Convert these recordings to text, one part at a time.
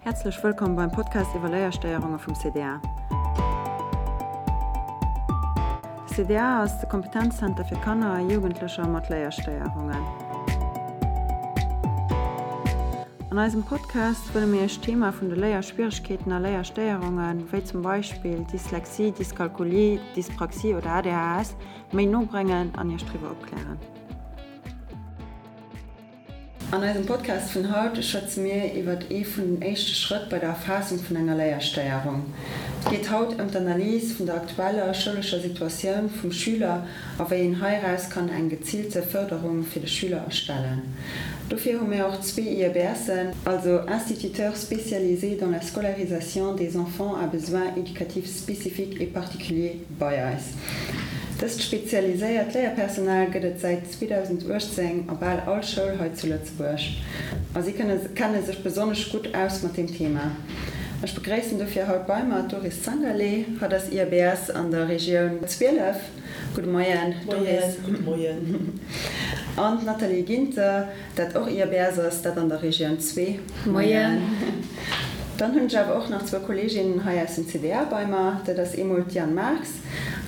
Häerzlech wëllkomm beim Podcast iwwer Léierstéierunge vum CDA. De CDA ass de Kompetenzzenter fir Kanner a Jugendlecher mat Léierstéierungen. An eisem Podcast wëlle mir Iech d'Thema vun de Léierschwieregkeeten a Léierstéierungen, wéi zum Beispill Dyslexie, Dyskalkulie, Dyspraxie oder ADHS, méi no bréngen an Iech driwwer opklären. An eisem Podcast vun haut schwätze mir iwwert ee vun den éischte Schrëtt bei der Erfaassung vun enger Léierstéierung. Et geet haut ëm d'Analys vun der aktueller schoulescher Situatioun vum Schüler a wéi een heiraus kann eng geziilte Fërderung fir de Schüler erstellen. Dofir hu mir och zwee IEBSen, also Instituteurs spécialisés dans la scolarisation des enfants à besoins éducatifs spécifiques et particuliers, bei eis. Dëst spezialiséiert Léierpersonal gëtt et säit 2018 a bal all Schoul hei zu Lëtzebuerg a si kenne sech besonnesch gutt aus mat deem Thema. Ech begréissen dofir haut bei mer d'Doris Zangerlé. Hatt ass IABS an der Regioun 12. Gudde Moien, Doris. Moien, gudde Moien. An d'Nathalie Ginter, dat och IABS ass, dat an der Regioun 2. Moien. Dann hunn ech awer och nach zwou Kolleeginnen hei aus dem CDA bei mer. Dat ass eemol d'Diane Marx,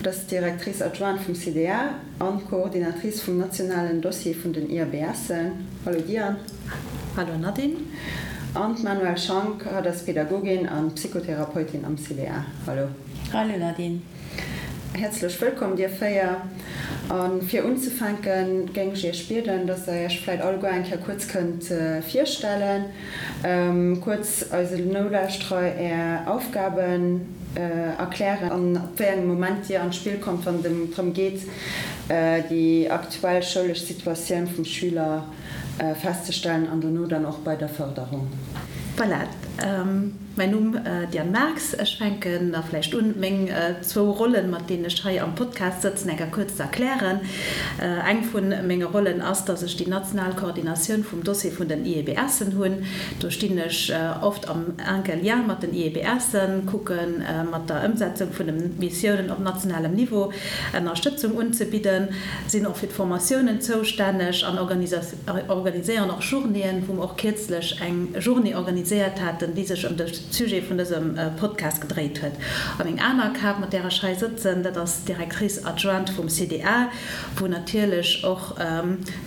dat ass d'Directrice adjointe vum CDA an d'Coordinatrice vum nationalen Dossier vun den IABSen. Hallo Diane. Hallo Nadine. An d'Manuelle Schank, hatt ass Pädagogin an Psychotherapeutin am CDA. Hallo. Hallo Nadine. Häerzlech wëllkomm dir 4. A fir unzefänken, géing ech iech bieden, dass der iech vläit alleguer eng Kéier kuerz kënnt virstellen, kuerz eise Nolauschterer är Aufgaben erklären an ab wéi engem Moment dir an d'Spill kommt, wann et drëm geet, déi aktuell schoulesch Situatioun vum Schüler festzestellen an dono dann och bei der Fërderung. Voilà, mäin Numm Diane Marx. Ech fänken da vläicht un, meng zwou Rollen, mat deenen ech hei am Podcast sëtzen, eng Kéier kuerz ze erklären. Eng vu menge Rollen ass, dass ech déi national Koordinatioun vum Dossier vun den IEBSen hunn. Do stinn ech oft am enke Lien mat den IEBSen, kucke mat der Ëmsetzung vun de Missiounen op nationalem Niveau Ënnerstëtzung unzebidden, sinn och fir d'Formatiounen zoustänneg an organiséieren och Journéeën, wou mer och kierzlech eng Journée organiséiert haten, déi sech ëm de Sujet vun dësem Podcast gedréit huet. A meng aner Kap, mat där ech hei sëtzen, dat ass d'Directrice adjointe vum CDA, wou natierlech och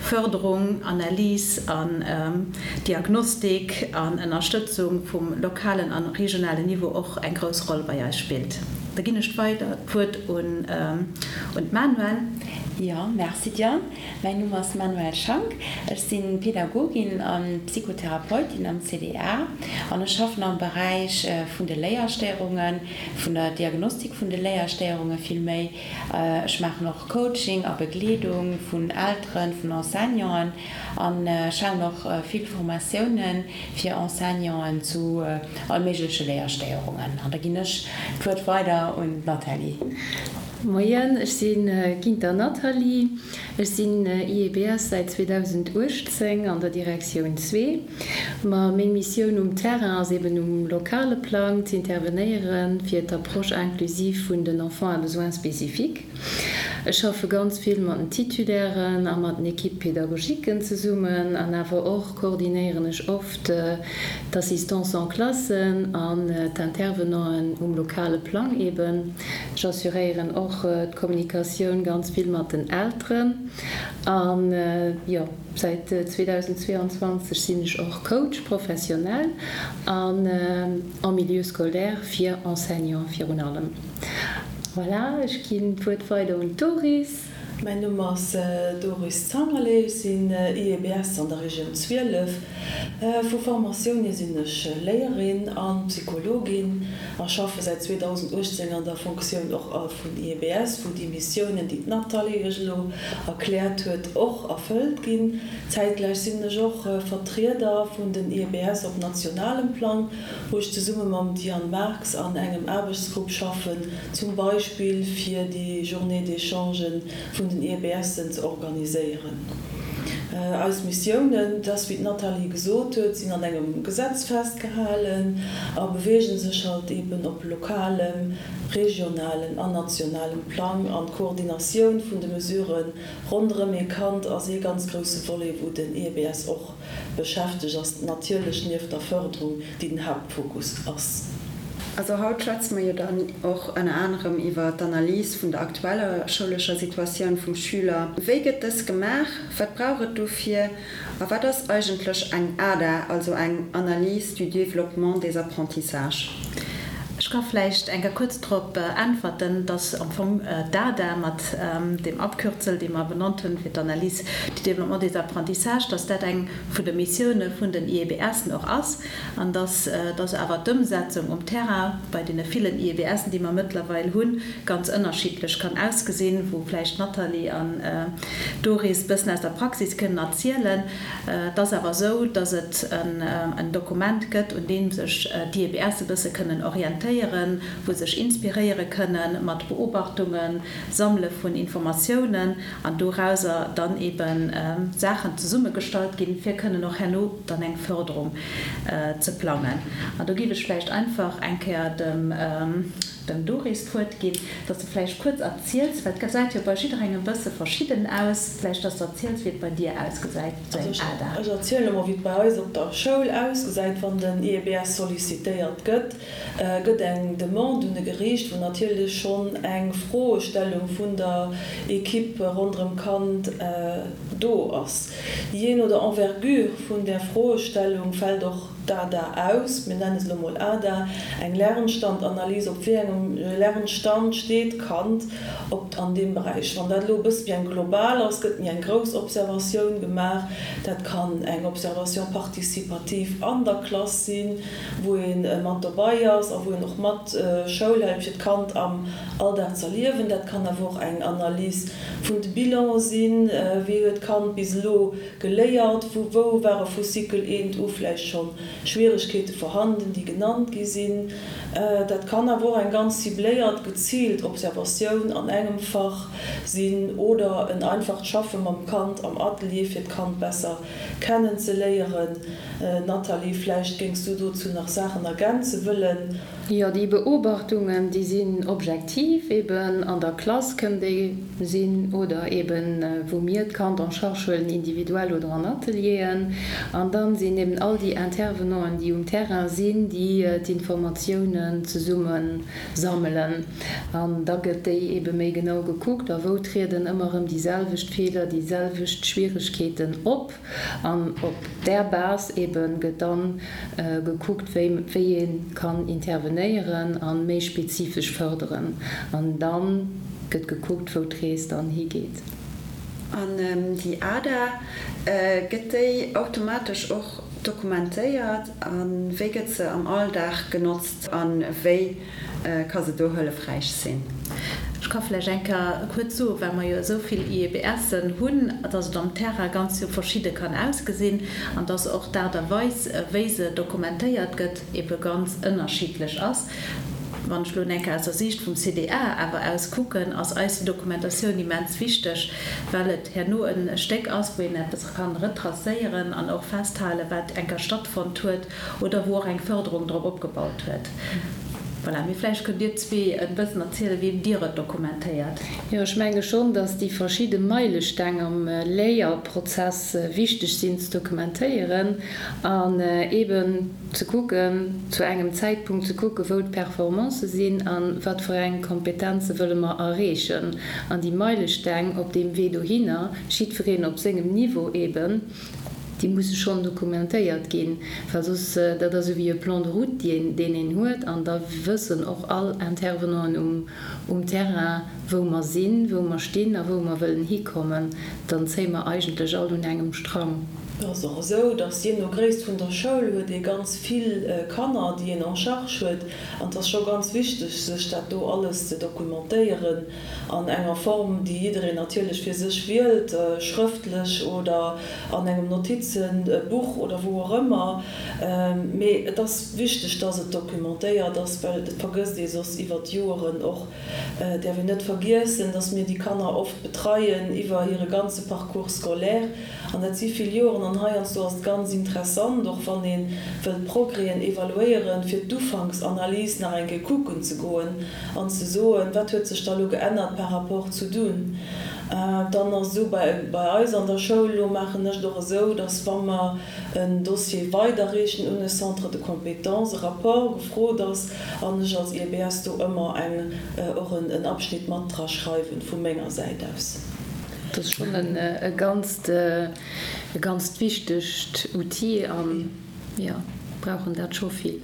Fërderung, Analys an Diagnostik an Ënnerstëtzung vum lokalen an regionalen Niveau och eng grouss Roll bei eis spillt. Da ginn ech weider d'Wuert un d'Manuelle. Jo, merci Diane. Mäin Numm ass Manuelle Schank. Ech si Pädagogin a Psychotherapeutin am CDA an ech schaffen am Beräich vun de Léierstéierungen, vun der Diagnostik vun de Léierstéierunge vill méi. Ech maachen och Coaching a Begleedung vun Elteren, vun Enseignanten an ech halen och vill Formatioune fir Enseignanten zu all méigleche Léierstéierungen. An da ginn ech d'Wuert weider un d'Nathalie. Moien, ech si Ginter Nathalie. Ech sinn IEBS säit 2018 an der Direktioun zwee. Ma meng Missioun um Terrain ass eben um lokale Plang z'intervenéiere fir d'Approche inclusive vun den Enfants à besoins spécifiques. Ech schaffe ganz vill mat den Titulairen a mat den Équipes pédagogiquen zesummen an awer och koordinéieren ech oft d'Assistance en classe an d'Intervenanten um lokale Plang eben. Ech assuréieren och d'Kommunikatioun ganz vill mat den Elteren an jo. Säit 2022 sinn ech och Coach professionnel an en milieu scolaire fir Enseignant virun allem. Voilà, ech ginn d'Wuert weider un d'Doris. Mäin Numm ass Doris Zangerlé, ech sinn IEBS an der Regioun 12. Vu Formatioun hier sinn ech Léierin a Psychologin a schaffe säit 2018 an der Fonctioun och vun IEBS, wou déi Missiounen, déi d'Nathalie iech elo erkläert huet, och erfëllt ginn. Zäitgläich sinn ech och Vertrieder vun den IEBS op nationalem Plang, wou ech zesumme mam Diane Marx an engem Aarbechtsgrupp schaffen, zum Beispill fir déi Journée d'échangen vun den IEBSen ze organiséieren. Eis Missiounen, et ass wéi d'Nathalie gesot huet, sinn an engem Gesetz festgehalen a beweege sech halt eben op lokalem, regionalem an nationalem Plang. An d'Koordinatioun vun de Mesurë ronderëm ee Kand ass ee ganz grousse Volet, wou den IEBS och beschäftegt ass, natierlech nieft der Fërderung, déi den Haaptfokus ass. Also haut schwätze mer jo dann och ënner anerem iwwer d'Analys vun der aktueller schoulescher Situatioun vum Schüler. Wéi gëtt dës gemaach? Wat brauch et dofir? A wat ass eigentlech eng ADA, also eng Analyse du développement des apprentissages? Ech ka vläicht eng Kéier kuerz drop äntwerten, dass am Fong d'ADA mat deem Abkürzel, dee mer benannt hunn fir d'Analyse du développement des apprentissages, dass dat eng vun de Missioune vun den IEBSen och ass. An dass dass awer d'Ëmsetzung um Terrain bei deene villen IEBSen, déi mer mëttlerweil hunn, ganz ënnerschiddlech kann ausgesinn, wou vläicht d'Nathalie an d'Doris bëssen aus der Praxis kënnen erzielen. Et ass awer esou, dass et en Dokument gëtt, un deem sech d'IEBS e bësse kënnen orientéieren, wou sech inspiréiere kënnen mat Beobachtungen, Sammele vun Informatiounen an dorauser dann eebe Saachen zesummegestallt ginn, fir kënnen och herno dann eng Förderung ze plangen. An do géif ech vläicht einfach eng Kéier dem dem Doris d'Wuert ginn, dass de vläicht kuerz erziels, well et gesäit jo bei jidderengem e bësse verschidden aus, vläicht dass de erziels, wéi et bei dir ausgesäit, sou eng ADA. Ech erzielen emol, wéi et bei eis op der Schoul ausgesäit, wann den IEBS sollicitéiert gëtt. Gëtt eng Demande un e Geriicht, wou natierlech schonn eng Froestellung vun der Equipe ronderëm d'Kand do ass. Jee no der Envergure vun där Froestellung fält och d'ADA aus. Mir nenne se elo mol ADA, eng Lernstandanalyse, op wéi engem Lernstand steet d'Kand op an deem Beräich. Wann dat elo e bësse méi eng global ass, gëtt méi eng grouss Observatioun gemaach. Dat kann eng Observation participative an der Klass sinn, wou ee mat dobei ass a wou een och mat Schoul hält, fir d'Kand am Alldag z'erliewen. Dat kann awer och eng Analys vun de Bilanen sinn, wéi huet d'Kand bis elo geléiert, wou ware vu Cycle I u vläicht scho Schwieregkeete vorhanden, déi genannt gi sinn. Dat kann awer och eng ganz cibléiert, geziilt Observatioun an engem Fach sinn oder en einfacht Schaffe mam Kand am Atelier, fir d'Kand besser kennen ze léieren. Nathalie, vläicht géings du dozou nach Saachen ergänze wëllen? Jo, déi Beobachtungen, déi sinn objektiv, eben an der Klass kënnen déi sinn oder eben wou mir d'Kand en charge huelen, individuell oder an Atelieren. An dann sinn eben all déi Intervenanten, déi um Terrain sinn, déi d'Informatiounen zesumme sammelen. An da gëtt déi ebe méi genau gekuckt a wou trieden ëmmer erëm déi selwecht Feeler, déi selwecht Schwieregkeeten op. An op där Base ebe gëtt dann gekuckt, wéi wéi ee kann intervenéieren a méi spezifesch fërderen. An da gëtt gekuckt, wou d'Rees dann higeet. An déi ADA, gëtt déi automatesch och dokumentéiert? A wéi gëtt se am Alldag genotzt a wéi ka se do hëllefräich sinn? Ech ka vläicht eng Kéier kuerz soen, well mer jo esou vill IEBSen hunn, dass et am Terrain ganz jo verschidde kann ausgesinn an dass och d'Aart a Weis, wéi se dokumentéiert gëtt, ebe ganz ënnerschiddlech ass. Wann ech elo eng Kéier aus der Siicht vum CDA awer aus kucken, ass eis déi Dokumentatioun immens wichteg, well et herno e Stéck ass, wou een eppes kann retracéieren an och festhalen, wat eng Kéier stattfonnt huet oder wou och eng Förderung drop opgebaut huet. Voilà, mee vläicht kënnt Dir zwee e bëssen erzielen, wéi Dir et dokumentéiert. Jo, ech menge schonn, dass déi verschidde Meilesteng am Léierprozess wichteg sinn ze dokumentéieren an eeben ze kucken, zu engem Zäitpunkt ze kucken, wou d'Performancë sinn a wat fir eng Kompetenze wëlle mer erreechen. An déi Meilesteng op deem Wee dohinner, jiddwereen op sengem Niveau eeben, Déi musse schonn dokumentéiert ginn, well soss, dat ass esou wéi e Plan de route, deen deen een huet, an da wëssen och all Intervenanten um um Terrain, wou mer sinn, wou mer stinn a wou mer wëllen hikommen. Dann zéie mer eigentlech all un engem Strang. Et ass och esou, dass jee no Gréisst vun der Schoul huet ee ganz vill Kanner, déi een en charge huet. An et ass scho ganz wichteg, sech dat do alles ze dokumentéieren an enger Form, déi jiddereen natierlech fir sech wielt, schrëftlech oder an engem Notizenbuch oder wou och ëmmer. Mee et ass wichteg, dass et documentéiert ass, well et vergësst ee soss iwwer d'Joeren och. Et däerf een net vergiessen, dass mir déi Kanner oft betreien iwwer hire ganze Parcours scolaire. An dat si vill Joren. An heiansdo ass et ganz interessant, och wann ee wëllt Progrèsen evaluéieren, fir d'Ufanksanalys nach eng Kéier kucken ze goen an ze soen, Wat huet sech da lo geännert par rapport zu dunn? Dann ass esou, bei eis an der Schoul elo maachen ech et och esou, dass wa mer en Dossier weiderreechen un e Centre de compétences, e Rapport gefrot ass an ech als IEBS do ëmmer eng och en Abschnitt mat dra schreiwen vu menger Säit aus. Dat ass schonn e ganzt, e ganzt wichtegt Outil an, jo, brauchen dat scho vill.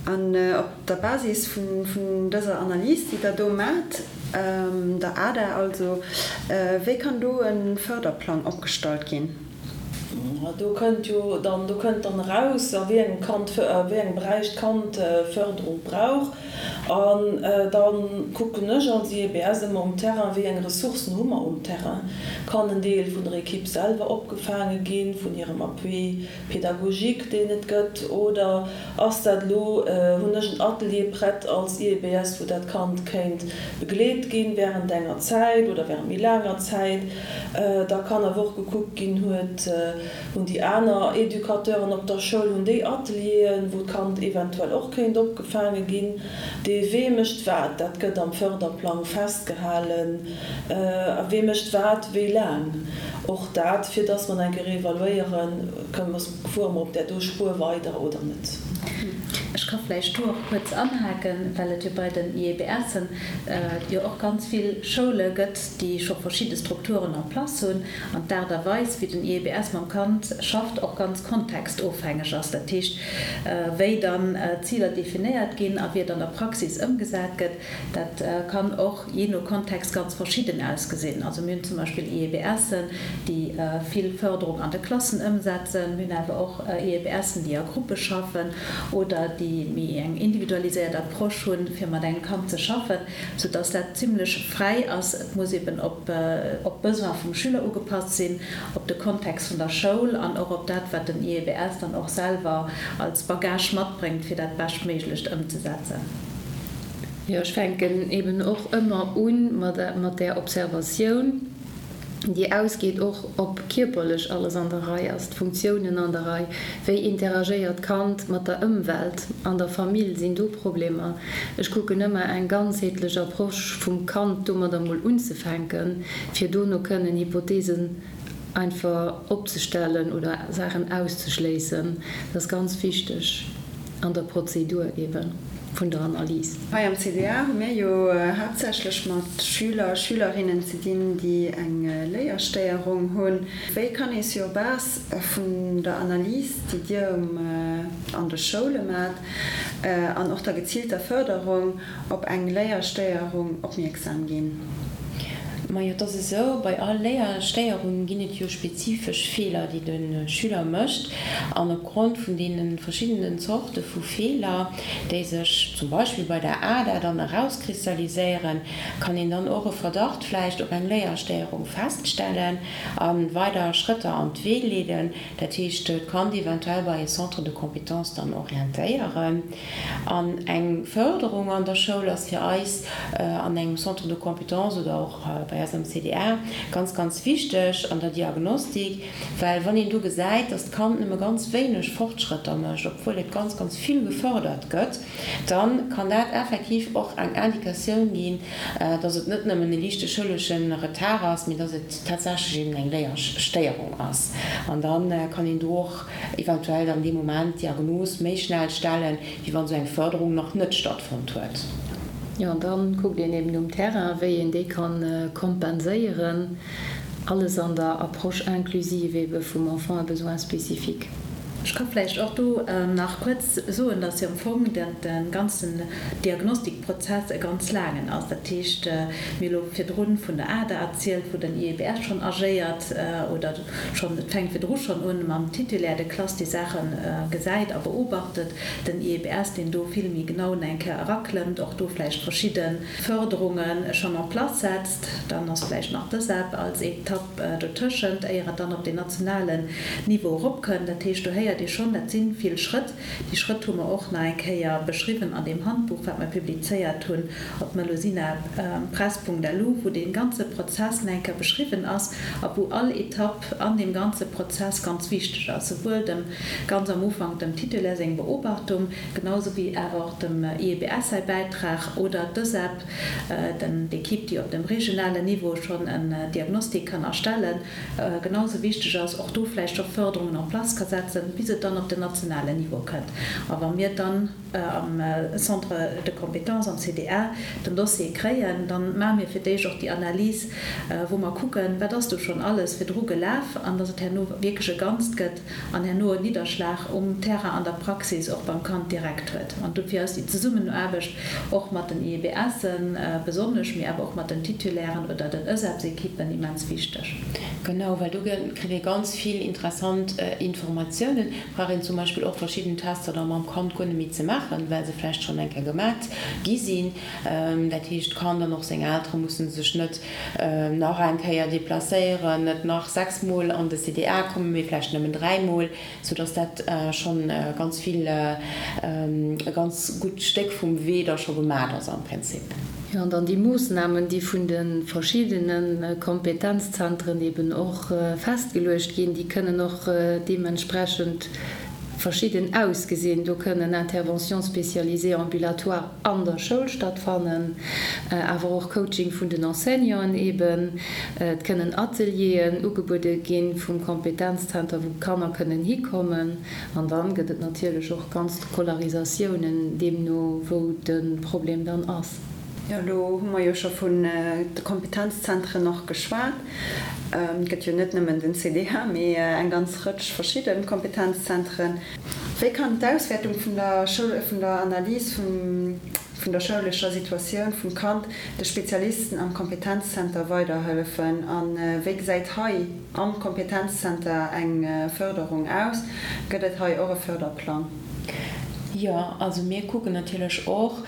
An op der Basis vun dëser Analys, déi Der do maacht, der ADA also, wéi kann do e Förderplang opgestallt ginn? Do kënnt jo dann, do kënnt dann eraus, a wéi engem Kand, a wéi engem Beräich d'Kand Förderung brauch. An da kucken ech als IEBS ëmmer um Terrain, wéi eng Ressourcen hu mer um Terrain. Kann en Deel vun der Equipe selwer opgefaange ginn, vun hirem Appui pédagogique, deen et gëtt, oder ass dat elo, hunn ech en Atelier prett als IEBS, wou dat Kand kéint begleet ginn während enger Zäit oder während méi laanger Zäit. Da kann awer och gekuckt ginn, huet, Hunn déi aner Educateuren op der Schoul, hunn déi Atelieren, wou d'Kand eventuell och kéint opgefaange ginn? Dee wee mécht wat, dat gëtt am Förderplang festgehalen. A wee mécht wat wéi laang? Och dat, fir dass mer eng Kéier evaluéieren, kënnen mer, fuere mer op där do Spuer weider oder net. Ech ka vläicht do och kuerz anhaken, well et jo bei den IEBSen jo och ganz vill Schoule gëtt, déi scho verschidde Strukturen en place hunn. An d'Aart a Weis, wéi den IEBS mam Kand schafft, och ganz kontextofhängeg ass. Dat heescht, wéi dann d'Ziler definéiert ginn a wéi et an der Praxis ëmgesat gëtt, dat kann och jee no Kontext ganz verschidden ausgesinn. Also mir hunn zum Beispill IEBSen, déi vill Fërderung an de Klassen ëmsetzen. Mir hunn awer och IEBSen, déi a Gruppe schaffen oder déi méi eng individualiséiert Approche hunn, fir mat engem Kand ze schaffen. sou dass dat zimlech fräi ass. Et muss eben op op d'Besoin vum Schüler ugepasst sinn, op de Kontext vun der Schoul an och op dat, wat den IEBS dann och selwer als Bagage matbréngt, fir dat beschtméiglecht ëmzesetzen. Jo, ech fänken eben och ëmmer u mat där Observatioun. déi ausgeet, och ob kierperlech alles an der Rei ass, d'Funktiounen an der Rei, wéi interagéiert d'Kand mat der Ëmwelt, an der Famill, sinn do Problemer. Ech kucken ëmmer eng ganzheetlech Approche vum Kand domadder mol unzefänken, fir dono kënnen Hypothesen einfach opzestellen oder Saachen auszeschléissen. Dat ass ganz wichteg an der Prozedur eeben vun der Analys. Hei am CDA hu mir jo haaptsächlech mat Schüler, Schülerinnen ze dinn, déi eng Léierstéierung hunn. Wéi kann ee sur base vun der Analys, déi Dir an de Schoule maacht, an och der geziilter Fërderung, op eng Léierstéierung opmierksam ginn? Majo, et ass esou, bei all Léierstéierung ginn et jo spezifesch Feeler, déi de Schüler mécht. An opgrond vun deene verschiddenen Zorte vu Feeler, déi sech zum Beispill bei der ADA dann erauskristalliséieren, kann een dann och e Verdacht vläicht op eng Léierstéierung feststellen a weider Schrëtter an d'Wee leeden. Dat heescht, d'Kand eventuell bei e Centre de compétences dann orientéieren. An eng Förderung an der Schoul ass fir eis an engem Centre de compétences oder och bei eis am CDA ganz, ganz wichteg an der Diagnostik, well wann een do gesäit, dass d'Kand nëmme ganz wéineg Fortschrëtter mécht, obwuel et ganz, ganz vill gefördert gëtt, da kann dat effektiv och eng Indikatioun ginn, dass et net nëmmen e liichte schoulesche Retard ass, mee dass et tatsächlech eben eng Léierstéierung ass. An da kann een do och eventuell dann dee Moment d'Diagnos méi schnell stellen, wéi wann esou eng Fërderung nach net stattfonnt huet. Jo, an dann kuckt een eben um Terrain, wéi een déi kann kompenséieren, alles an der Approche inclusive ebe vum Enfant à besoins spécifiques. Ech ka vläicht och do nach kuerz soen, dass jo am Fong de ganzen Diagnostikprozess e ganz laangen ass. Dat heescht, mir hu lo virdrun vun der ADA erzielt, wou den IEBS schonn agéiert oder schonn, et fänkt virdru schonn un mam Titulaire de classe, dee Saache gesäit a beobachtet, den IEBS, deen do vill méi genau nach eng Kéier eraklëmmt, och do vläicht verschidde Fërderunge schonn en place setzt. Dann ass vläicht nach d'ESEP als Etapp dotëschent, éier et dann op den nationalen Niveau eropkënnt. Dat heescht, do héiert ee schonn, dat si vill Schrëtt. Déi Schrëtt hu mer och nach eng Kéier beschriwwen an deem Handbuch, wat mer publizéiert hunn op melusinapress.lu, wou dee ganze Prozess nach eng Kéier beschriwwen ass a wou all Etapp an deem ganze Prozess ganz wichteg ass, souwuel dem ganz am Ufank dem Titulaire seng Beobachtung, genau sou wéi awer och dem IEBS säi Bäitrag oder d'ÖSEP, d'Equipe, déi op dem regionalen Niveau schonn en Diagnostic kann erstellen, genau sou wichteg ass, och do vläicht scho Förderungen en place ka setzen, bis et dann op den nationalen Niveau kënnt. A wa mir dann am Centre de compétences, am CDA, den Dossier kréien, da maache mir fir d'éischt och déi Analys, wou mer kucken, wat ass do schonn alles virdru gelaf, an dass et herno wierklech e Ganzt gëtt, an herno en Nidderschlag um Terrain an der Praxis och beim Kand direkt huet. An dofir ass déi Zesummenaarbecht och mat den IEBSen besonnesch, mee awer och mat den Titulairen oder den ÖSEPS-Ekippen immens wichteg. Genau, well do kritt ee ganz vill interessant Informatiounen. Brauch een zum Beispill och verschidden Tester da mam Kand guer net méi ze maachen, well se vläicht schonn eng Kéier gemat gi sinn. Dat heescht, d'Kand an och seng Eltere musse sech net nach eng Kéier deplacéieren, net nach 6 Mol an de CDA kommen, mee vläicht nëmmen 3 Mol, soudass dat schonn ganz vill, e ganz gutt Stéck vum Wee da scho gemat ass am Prinzip. Jo, an dann déi Moossnamen, déi vun de verschiddene Kompetenzzentren eben och festgeluecht ginn, déi kënnen och deementsprechend verschidden ausgesinn. Do kënnen Interventions spécialisées ambulatoires an der Schoul stattfannen, awer och Coaching vun den Enseignanten eben. Et kënnen Atelieren ugebuede gi vum Kompetenzzenter, wou d'Kanner kënnen hikommen. An dann gëtt et natierlech och ganz Scolarisatiounen, deemno wou de Problem dann ass. Jo, elo hu mer jo scho vun de Kompetenzzentren och geschwat. Et gëtt jo net nëmmen den CDH, mee eng ganz Rëtsch verschidde Kompetenzzentren. Wéi kann d'Auswäertung vun der Schoul, vun der Analys vun der schoulescher Situatioun vum Kand de Spezialisten am Kompetenzzenter weiderhëllefen a wéi gesäit hei am Kompetenzzenter eng Fërderung aus? Gëtt et hei och e Fërderplang? Jo, also mir kucken natierlech och,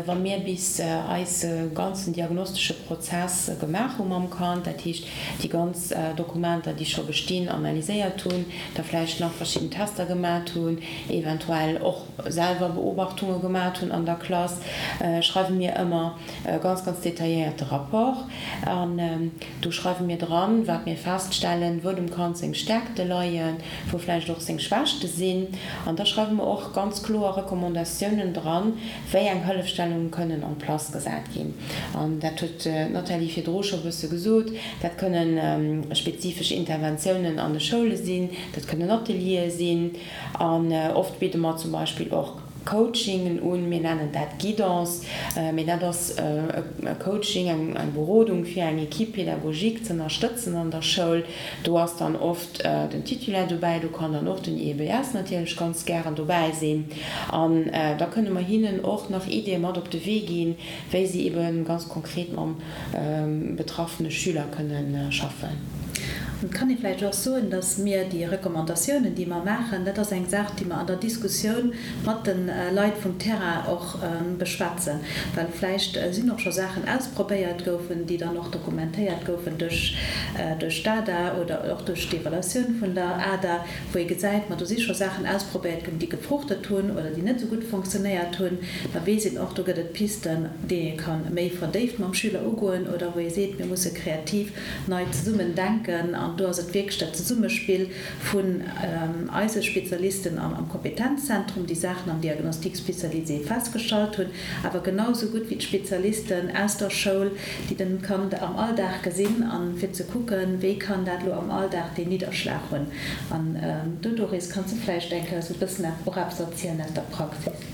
wa mir bis eise ganzen diagnostesche Prozess gemaach hu mam Kand, dat heescht déi ganz Dokumenter, déi scho bestinn, analyséiert hunn, da vläicht nach verschidden Tester gemat hunn, eventuell och selwer Beobachtunge gemat hunn an der Klass, schreiwe mir ëmmer e ganz, ganz detailléierte Rapport. An do schreiwe mir dran, wat mir feststellen, wou dem Kand seng Stärkte leien, wou vläicht och seng Schwächte sinn. An da schreiwe mer och ganz kloer Recommandatiounen dran, wéi eng Hëllefstellunge kënnen en place gesat ginn. An dat huet d'Nathalie virdru scho e bësse gesot, dat kënnen spezifesch Interventiounen an de Schoule sinn, dat kënnen Ateliere sinn. An oft bidde mer zum Beispill och Coachingen un, mir nennen dat Guidance, mee dat ass e Coaching, eng Berodung fir eng Équipe pédagogique z'ënnerstëtzen an der Schoul. Do ass dann oft den Titulaire dobäi, do kann dann och den IEBS natierlech ganz gären dobäi sinn. An da kënne mer hinnen och nach Iddie mat op de Wee ginn, wéi si ebe ganz konkret mam betraffene Schüler kënne schaffen. Et kann ee vläicht och soen, datt mir déi Recommandatiounen, déi mer maachen, dat ass eng Saach, déi mer an der Diskussioun mat de Leit vum Terrain och beschwätzen, well vläicht sinn och scho Saachen ausprobéiert goufen, déi dann och dokumentéiert goufen duerch d'ADA oder och duerch d'Evaluatioun vun der ADA, wou ee gesäit, ma do si scho Saachen ausprobéiert ginn, déi gefruchtet hunn oder déi net esou gutt fonctionnéiert hunn, da weess een och, do gëtt et Pisten, déi ee ka méi verdéift mam Schüler ugoen oder wou ee seet, mir musse kreativ nei zesummen denken. An do ass et wierklech dat Zesummespill vun eise Spezialisten am Kompetenzzentrum, déi Saachen am Diagnostic spécialisé festgestallt hunn, awer genau esou gutt wéi d'Spezialisten aus der Schoul, déi den Kand am Alldag gesinn, an fir ze kucken, wéi kann dat elo am Alldag deen Nidderschlag hunn. An do, Doris, kanns du vläicht eng Kéier esou e bëssen och eppes erzielen aus der Praxis?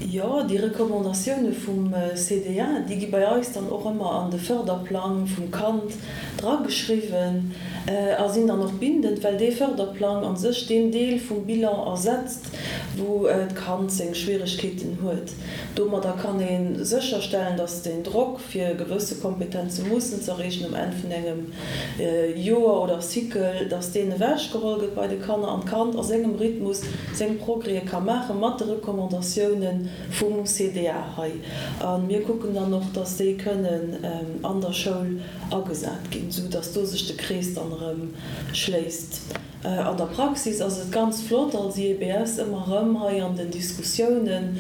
Jo, déi Recommandatioune vum CDA, déi gi bei eis dann och ëmmer an de Förderplang vum Kand drageschriwwen. A sinn dann och bindend, well dee Fërderplang a sech deen Deel vum Bilan ersetzt, wou d'Kand seng Schwieregkeeten huet. Domadder kann ee sécherstellen, dass den Drock, fir gewësse Kompetenze mussen z'erreechen um Enn vun engem Joer oder Cycle, dass deen ewechgeholl gëtt bei de Kanner an d'Kand a sengem Rhythmus seng Progrèse ka maache mat de Recommandatioune vum CDA hei. A mir kucken dann och, dass déi kënnen an der Schoul agesat ginn, sou dass do sech de Krees dann erëm schléisst. An der Praxis ass et ganz flott als IEBS ëmmer erëm hei an den Diskussiounen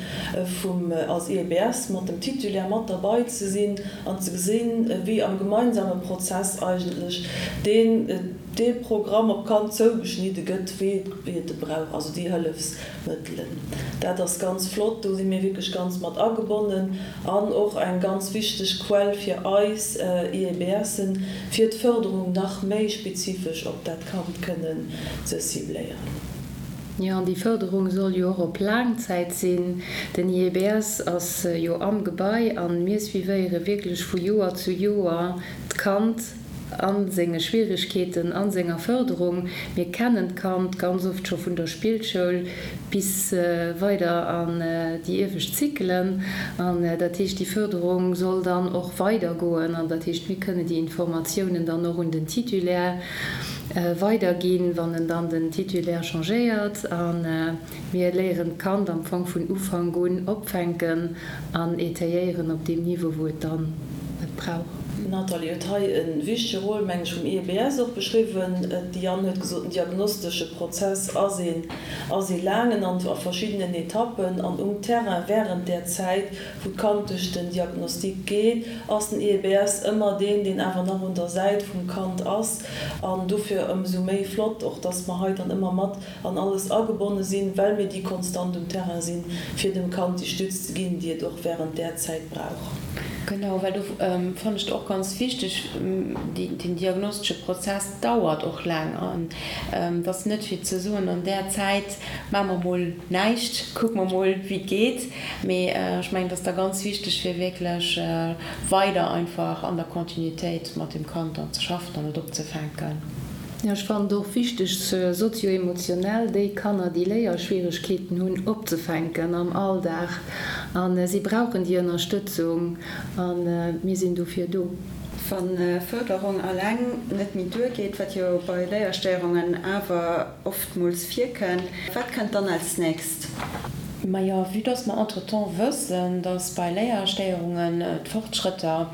vum als IEBS mat dem Titulaire mat derbei ze sinn an ze gesinn, wéi am gemeinsame Prozess eigentlech deen dee Programm op d'Kand zougeschnidde gëtt, wéi et e brauch, also déi Hëllefsmëttelen. Dat ass ganz flott, do si mir wierklech ganz mat agebonnen an och eng ganz wichteg Quell fir eis IEBSen, fir d'Fërderung nach méi spezifesch op dat Kand kënnen ze cibléieren. Jo, an déi Fërderung soll jo och op laang Zäit sinn. Den IEBS ass jo am Gebai a mir suivéiere wierklech vu Joer zu Joer d'Kand a senge Schwierigkeeten, a senger Fërderung. Mir kennen d'Kand ganz oft scho vun der Spillschoul bis weider an déi iewescht Zykelen. An dat heescht, déi Fërderung soll dann och weidergoen. An dat heescht, mir kënne déi Informatiounen dann och un den Titulaire weiderginn, wann en dann den Titulaire changéiert. A mir léieren d'Kand am Fong vun Ufank un opfänken an étayéieren op deem Niveau, wou et dann et brauch. D'Nathalie huet hei e wichtege Rôle, meng ech, vum IEBS och beschriwwen. D'Diane huet gesot, den diagnostesche Prozess ass een ass ee laangen an a verschiddenen Etappen. An um Terrain wärend där Zäit, wou d'Kand duerch den Diagnostic geet, ass den IEBS ëmmer deen, deen awer nach un der Säit vum Kand ass. An dofir ëmsou méi flott och, dass mer hei dann ëmmer mat an alles agebonne sinn, well mir déi konstant um Terrain sinn, fir dem Kand déi Stütz ze ginn, déi et och wärend där Zäit brauch. Genau, well do fannen ech et och ganz wichteg, den diagnostesche Prozess dauert och laang an et ass net fir ze soen, an där Zäit maache mer mol näischt, kucke mer mol wéi et geet, mee ech mengen et ass da ganz wichteg fir wierklech weider einfach an der Continuitéit mat dem Kand dann ze schaffen an et opzefänken. Jo, ech fannen et och wichteg, sozio-emotionell déi Kanner, déi Léierschwieregkeeten hunn, opzefänken am Alldag. A si brauchen déi Ënnerstëtzung a mir sinn dofir do. Wa Fërderung alleng net méi duergeet, wat jo bei Léierstéierungen awer oftmools virkënnt, wat kënnt dann als nächst? Majo, vue dass mer entretemps wëssen, dass bei Léierstéierungen d'Fortschrëtter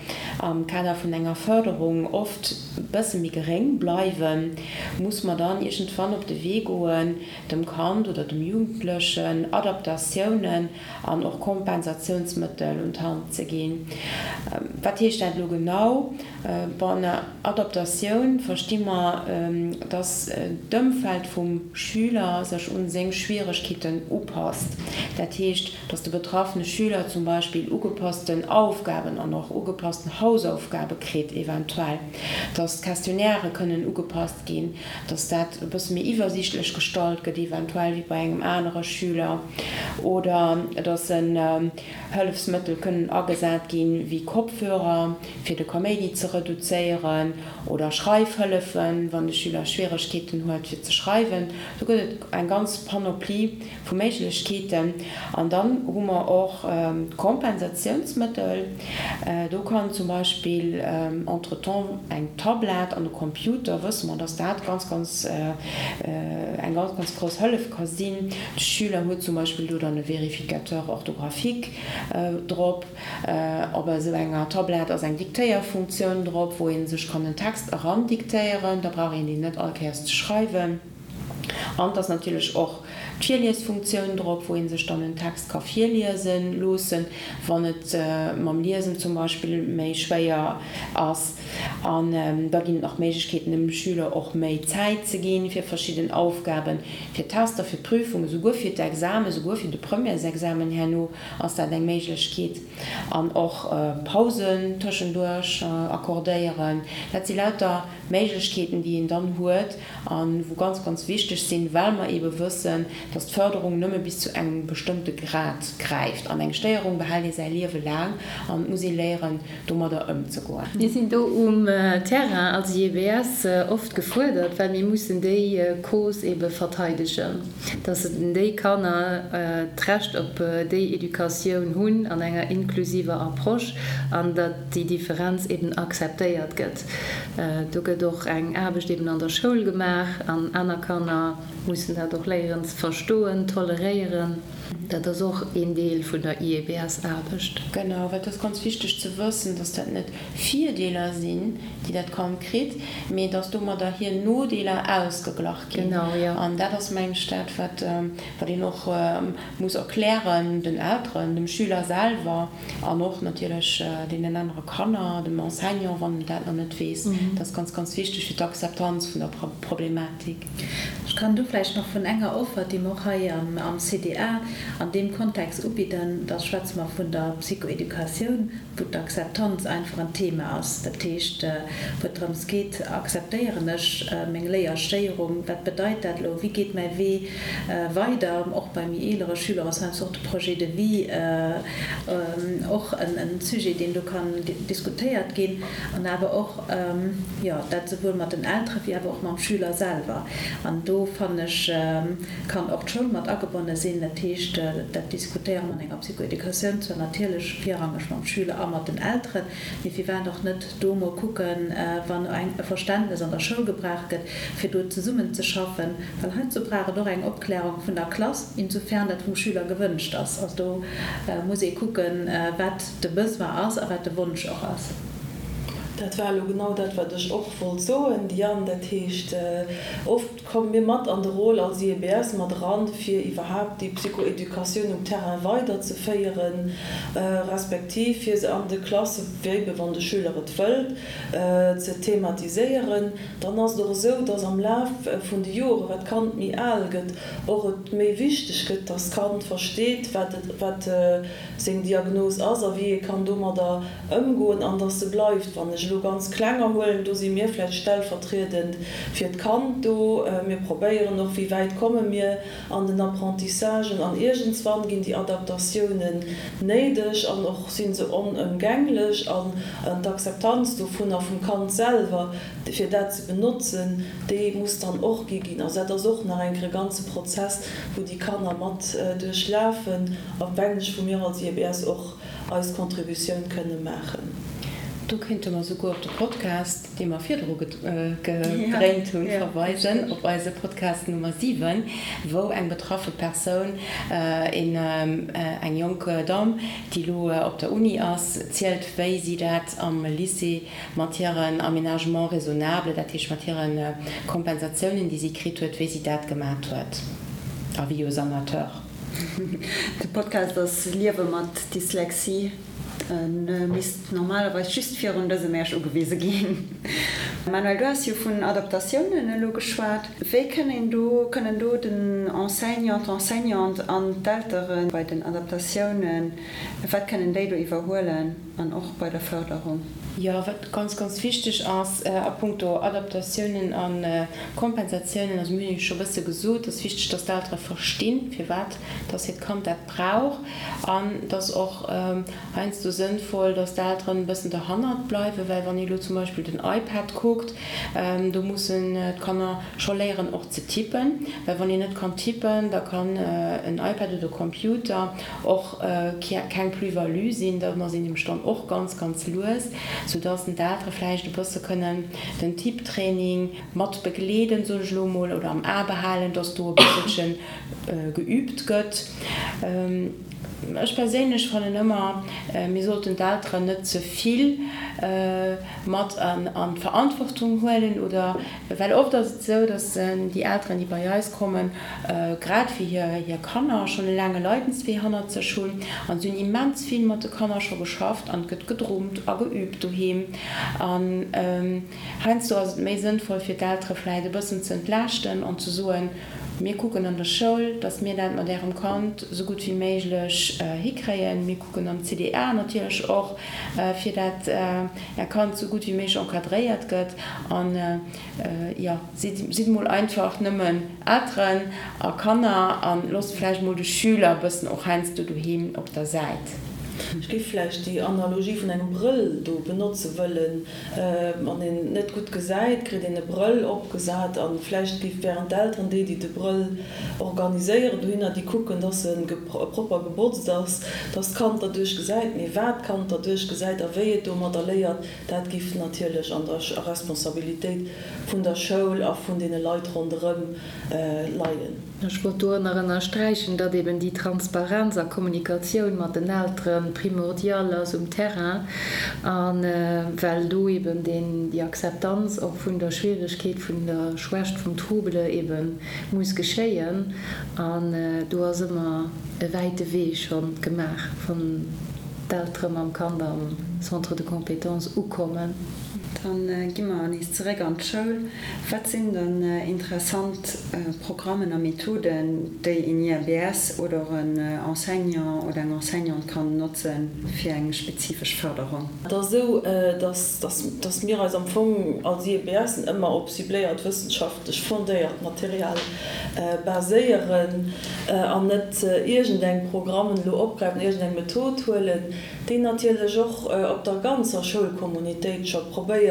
am Kader vun enger Fërderung oft e bësse méi geréng bleiwen, muss mer dann iergendwann op de Wee goen, dem Kand oder dem Jugendlechen Adaptatiounen an och Kompensatiounsmëttel un d'Hand ze ginn. Wat heescht dat elo genau? Bon, ënner Adaptatioun versti mer, dass d'Ëmfeld vum Schüler sech un seng Schwieregkeeten upasst. Dat heescht, dass de betraffene Schüler zum Beispill ugepassten Aufgaben an och ugepassten Hausaufgabe kritt eventuell, dass d'Questionnairë kënnen ugepasst ginn, dass dat e bësse méi iwwersiichtlech gestallt gëtt eventuell wéi bei engem anere Schüler oder dass en Hëllefsmëttel kënnen agesat ginn, wéi Kopfhörer, fir de Kaméidi ze reduzéieren, oder Schreifhëllefen, wann de Schüler Schwieregkeeten huet fir ze schreiwen. Do gëtt et eng ganz Panoplie vu Méiglechkeeten. An dann hu mer och d'Kompensatiounsmëttel. Do kann zum Beispill entretemps eng Tablett an e Computer, wësse mer, dass dat ganz, ganz eng ganz, ganz grouss Hëllef ka sinn. De Schüler huet zum Beispill do dann e Vérificateur orthographique drop. Op esou enger Tablett ass eng Diktéierfunktioun drop, wou ee sech kann en Text erandiktéieren. Da brauch een deen net all Kéiers ze schreiwen. An et ass natierlech och d'Virliesfunktioun drop, wou ee sech dann en Text ka virliese loossen, wann et mam Liesen zum Beispill méi schwéier ass. An da ginn et nach Méiglechkeeten, dem Schüler och méi Zäit ze ginn fir verschidden Aufgaben, fir Tester, fir Prüfungen, souguer fir d'Examen, souguer fir de Premièresexamen herno ass dat eng Méiglechkeet. An och Pausen tëschenduerch accordéieren. Dat si lauter Méiglechkeeten, déi een dann huet a wou ganz, ganz wichteg sinn. sinn, well mer eebe wëssen, dass d'Fërderung nëmme bis zu engem bestëmmte Grad gräift. An eng Stéierung behält ee säi Liewe laang an et muss ee léieren, domadder ëmzegoen. Mir sinn do um Terrain als IEBS oft gefuerdert, well mir mussen déi Cause ebe verteidegen, dass déi Kanner d'Recht op déi Educatioun hunn an enger inklusiver Approche an datt déi Differenz eben akzeptéiert gëtt. Do gëtt och eng Aarbecht eben an der Schoul gemaach an aner Kanner mussen dat och léieren ze verstoen, toleréieren. Dat ass och een Deel vun der IEBS-Aarbecht. Genau, well et ass ganz wichteg ze wëssen, dass dat net Virdeeler sinn, déi dat Kand kritt, mee dass domadder hir Nodeeler ausgeglach ginn. Genau, jo. An dat ass, mengen ech, dat, wat wat een och muss erklären den Elteren, dem Schüler selwer an och natierlech deenen anere Kanner, dem Enseignant, wann en dat nach net weess. Dat ass ganz, ganz wichteg fir d'Akzeptanz vun der Problematik. Ech kann do vläicht nach vun enger Offer, déi mer och hei am CDA an deem Kontext ubidden, da schwätze mer vun der Psychoeducatioun, wou d'Akzeptanz einfach en Thema ass. Dat heescht, wou et drëms geet, Akzeptéieren ech meng Léierstéierung? Wat bedeit dat elo? Wéi geet mäi Wee weider? Och bei méi eelere Schüler ass heiansdo och de Projet de vie och en Sujet, deen do kann diskutéiert ginn. An awer och, jo, dat esouwuel mat den Eltere wéi awer och mam Schüler selwer. An do, fannen ech, kann och d'Schoul mat agebonne sinn. Dat heescht, dat diskutéiere mer an enger Psychoeducatioun zwar natierlech virrangeg mam Schüler a mat den Elteren, mee firwat och net do mol kucken, wann eng e Verständnes an der Schoul gebraucht gëtt, fir do zesummen ze schaffen, well heizou brauch et och eng Opklärung vun der Klass, insofern dat vum Schüler gewënscht ass. Also do muss ee kucken, wat de Besoin ass a wat de Wonsch och ass. Dat war elo genau dat, wat ech och wollt soen, Diane. Dat heescht, oft komme mir mat an de Rôle als IEBS mat eran, fir iwwerhaapt déi Psychoeducatioun um Terrain weiderzeféieren, respektiv fir se an de Klasse, wéi wann de Schüler et wëllt, ze thematiséieren. Dann ass et och esou, dass am Laf vun de Joren, wat d'Kand méi al gëtt, och et méi wichteg gëtt, dass d'Kand versteet, wat et, wat seng Diagnos ass a wéi ee kann domadder ëmgoen an dass se bleift. Wann ech elo ganz Klenger huelen, do si mir vläicht stellvertriedend fir d'Kand do. Mir probéieren och, wéi wäit komme mir an den Apprentissagen an iergendswann ginn déi Adaptatiounen néideg an och si se onëmgänglech an d'Akzeptanz dovunner vum Kand selwer, fir dat ze benotzen, déi muss dann och gi ginn. Also dat ass och nach eng Kéier e ganze Prozess, wou déi Kanner mat duerchlafen a wengeg wou mir als IEBS och eis Contributioun kënne maachen. Do kéinte mer souguer op de Podcast, dee mer virdru gedréint hunn, verweisen, op eise Podcast Nummer 7, wou eng betraffe Persoun, eng jonk Damm, déi elo op der Uni ass, zielt, wéi si dat am Lycée mat hiren Aménagements raisonnables, dat heescht mat hire Kompensatiounen, déi si kritt huet, wéi si dat gemat huet, Avis aux amateurs. De Podcast ass Liewe mat Dyslexie. E misst normalerweis just virun dësem Äerch ugewise ginn. Manuel, du has jo vun Adaptatiounen elo geschwat. Wéi kënnen do, kënnen do den Enseignant, d'Enseignante an d'Eltere bei den Adaptatiounen, wat kënnen déi do iwwerhuelen? An och bei der Förderung. Jo, wat ganz, ganz wichteg ass a puncto Adaptatiounen a Kompensatiounen, also mir hunn jo scho e bësse gesot, et ass wichteg, dass d'Eltere verstinn, firwat dass hiert Kand dat brauch. An et ass och heiansdo sënnvoll, dass d'Elteren e bëssen derhannert bleiwen, well wann ee elo zum Beispill den iPad kuckt, do mussen d'Kanner scho léieren och ze tippen, well wann een net kann tippen, da kann en iPad oder e Computer och keng Plus-value sinn, dann ass een nämlech dann och ganz, ganz lues, soudass d'Eltere vläicht e bësse kënnen den Tipptraining mat begleeden, soen ech elo emol, oder am A behalen, dass do e bësselche geübt gëtt. Ech perséinlech fannen ëmmer, mir sollten d'Elteren net ze vill mat an d'Verantwortung huelen oder, well oft ass et esou, dass déi Elteren, déi bei eis kommen, grad wéi hir Kanner schonn e laange Leidenswee hannert sech hunn an si hunn immens vill mat de Kanner scho geschafft an et gëtt gedrummt a geüübt doheem an heiansdo ass et méi sënnvoll fir d'Eltere vläit e bëssen ze entlaaschten an ze soen. Mir kucken an der Schoul, dass mir dat mat Ärem Kand esou gutt wéi méiglech hikréien. Mir kucken am CDA natierlech och, fir dat Är Kand esou gutt wéi méiglech encadréiert gëtt. An, jo, sidd, sidd mol einfach nëmmen Elteren a Kanner a loosst vläicht mol de Schüler e bëssen och heiansdo doheem op der Säit. Ech géif vläicht déi Analogie vun engem Brëll do benotze wëllen. Wann een net gutt gesäit, kritt een e Brëll opgesat a vläicht gi während d'Elteren, déi, déi de Brëll organiséieren dohinner, déi kucken, dass e propper gebotzt ass, dass d'Kand derduerch gesäit. Mee wat d'Kand derduerch gesäit a wéi et domadder léiert, dat giff natierlech an der Responsabilitéit vun der Schoul a vun deene Leit ronderëm leien. Ech wollt do nach ënnersträichen, datt eben déi Transparenz a Kommunikatioun mat den Eltere primordial ass um Terrain, a well do eben deen, déi Akzeptanz och vun der Schwieregkeet, vun der Schwächt vum Trouble ebe muss geschéien. An do ass ëmmer e wäite Wee scho gemaach, wann d'Eltere mam Kand am Centre de compétences ukommen. Dann gi mer nees zeréck an d'Schoul. Wat sinn dann interessant Programmen a Methoden, déi een IABS oder och en Enseignant oder eng Enseignante kann notzen fir eng spezifesch Fërderung? Et ass esou, dass mir eis am Fong als IEBSen ëmmer op cibléiert wëssenschaftlech fondéiert Material baséieren an net iergendeng Programmen elo opgräifen, iergendeng Method huelen, déi natierlech och op der ganzer Schoulkommunitéit scho probéieren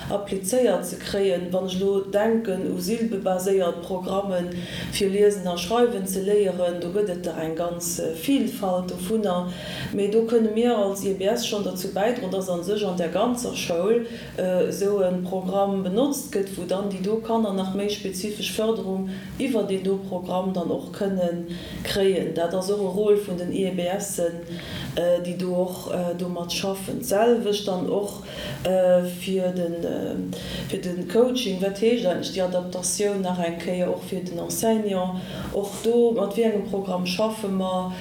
applizéiert ze kréien. Wann ech elo denken u silbebaséiert Programme fir Liesen a Schreiwen ze léieren, do gëtt et der eng ganz Vielfalt dovunner. Mee do kënne mir als IBS schonn derzou bäidroen, dass a sech an der ganzer Schoul esou e Programm benotzt gëtt, wou dann déi do Kanner nach méi spezifesch Fërderung iwwer deen do Programm dann och kënne kréien. Dat ass och e Rôle vun den IEBSen, déi do och domat schaffen. D'selwecht dann och fir de Coaching. Wat heescht eigentlech déi Adaptatioun nach eng Kéier och fir den Enseignant? Och do, mat wéi engem Programm schaffe mer?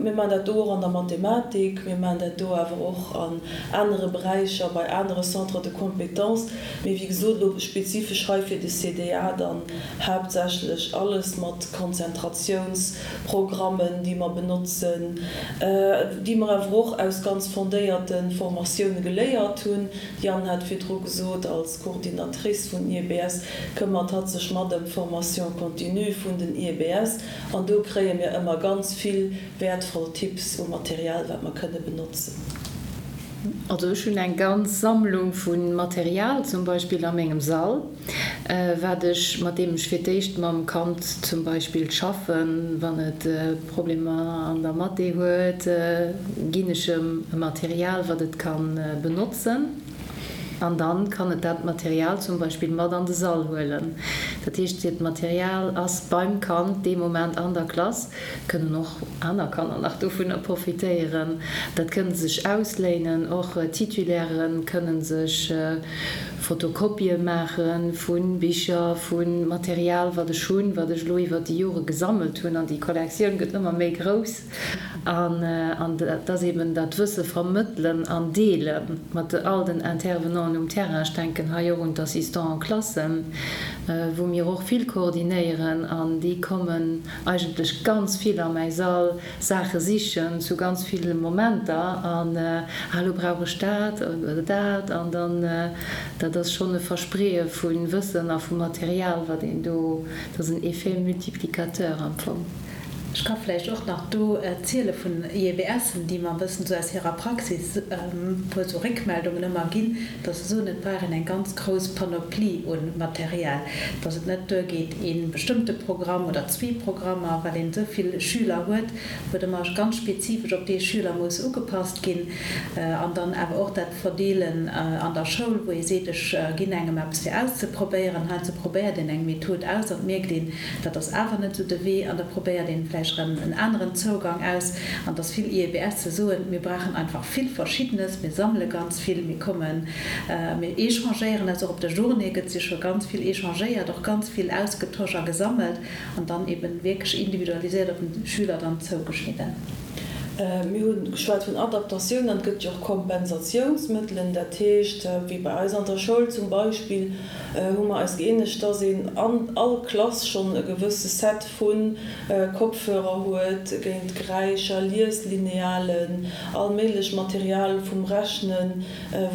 Mir maachen dat do och an der Mathematik, mir maachen dat do awer och an anere Beräicher, bei anere Centres de compétences. Mee wéi gesot, elo spezifesch hei fir de CDA dann haaptsächlech alles mat Konzentratiounsprogrammen, déi mer benotzen, déi mer awer och aus ganz fondéierte Formatioune geléiert hunn. D'Diane hat virdru gesot, als Coordinatrice vun IEBS këmmert hatt sech mat ëm d'Formation continue vun den IEBS an do kréie mir ëmmer ganz vill wäertvoll Tipps u Material, wat mer kënne benotzen. Also ech hunn eng ganz Sammlung vu Material zum Beispill a mengem Sall, wat ech, mat deem ech fir d'éischt mam Kand zum Beispill schaffen. Wann et Problemer an der Mathé huet, ginn ech em e Material, wat et ka benotzen. An dann kann et dat Material zum Beispill mat an de Sall huelen. Dat heescht, dat Material ass beim Kand dee Moment an der Klass. Kënnen och aner Kanner nach dovunner profitéieren. Dat kënne se sech ausléinen. Och Titulaire kënne sech Fotokopië maache vu Bicher, vu Material, wat ech hunn, wat ech elo iwwer déi Jore gesammelt hunn. An déi Kollektioun gëtt ëmmer méi grouss. An dat ass eben dat Wësse vermëttelen an deele mat all den Intervenanten um Terrain. Ech denken hei och un d'Assistants en classe, wou mir och vill koordinéieren. An déi kommen eigentlech ganz vill a mäi Sall Saache sichen zu ganz ville Momenter an ah elo brauch ech dat oder dat an dann, dat ass schonn e Verspreeë vu Wëssen a vu Material, wat een do, dat ass en Effet multiplicateur am Fong. Ech ka vläicht och nach do ziele vun IEBSen, déi mer e bëssen esou aus hirer Praxis e puer esou Réckmeldungen ëmmer ginn, dass se soen, et brauch een eng ganz grouss Panoplie u Material, dass et net duergeet ee bestëmmte Programm oder zwee Programmer, well een esou vill Schüler huet, wou et ëmmer ganz spezifesch op dee Schüler muss ugepasst ginn. An dann awer och dat Verdeelen an der Schoul, wou ee seet, ech ginn engem eppes fir auszeprobéieren. Heiansdo probéiert een eng Method aus an et mierkt een, dat ass awer net esou de Wee an da probéiert een vläicht erëm en aneren Zougang aus. An dass vill IEBSe soen, mir brauchen einfach vill Verschiddenes, mir sammele ganz vill, mir kommen, mir échangéieren eis och. Op der Journée gëtt si scho ganz vill échangéiert, och ganz vill ausgetosch a gesammelt an dann eben wierklech individualiséiert op den Schüler dann zougeschnidden. Mir hu geschwat vun Adaptatioun an et gëtt jo och Kompensatiounsmëttelen. Dat heescht, wéi bei eis an der Schoul zum Beispill, hu mer eis gëeenegt, dass een an all Klass schonn e gewësse Set vu Kopfhörer huet géint Geräischer, Lieslinealen, all méiglech Material vum Rechnen,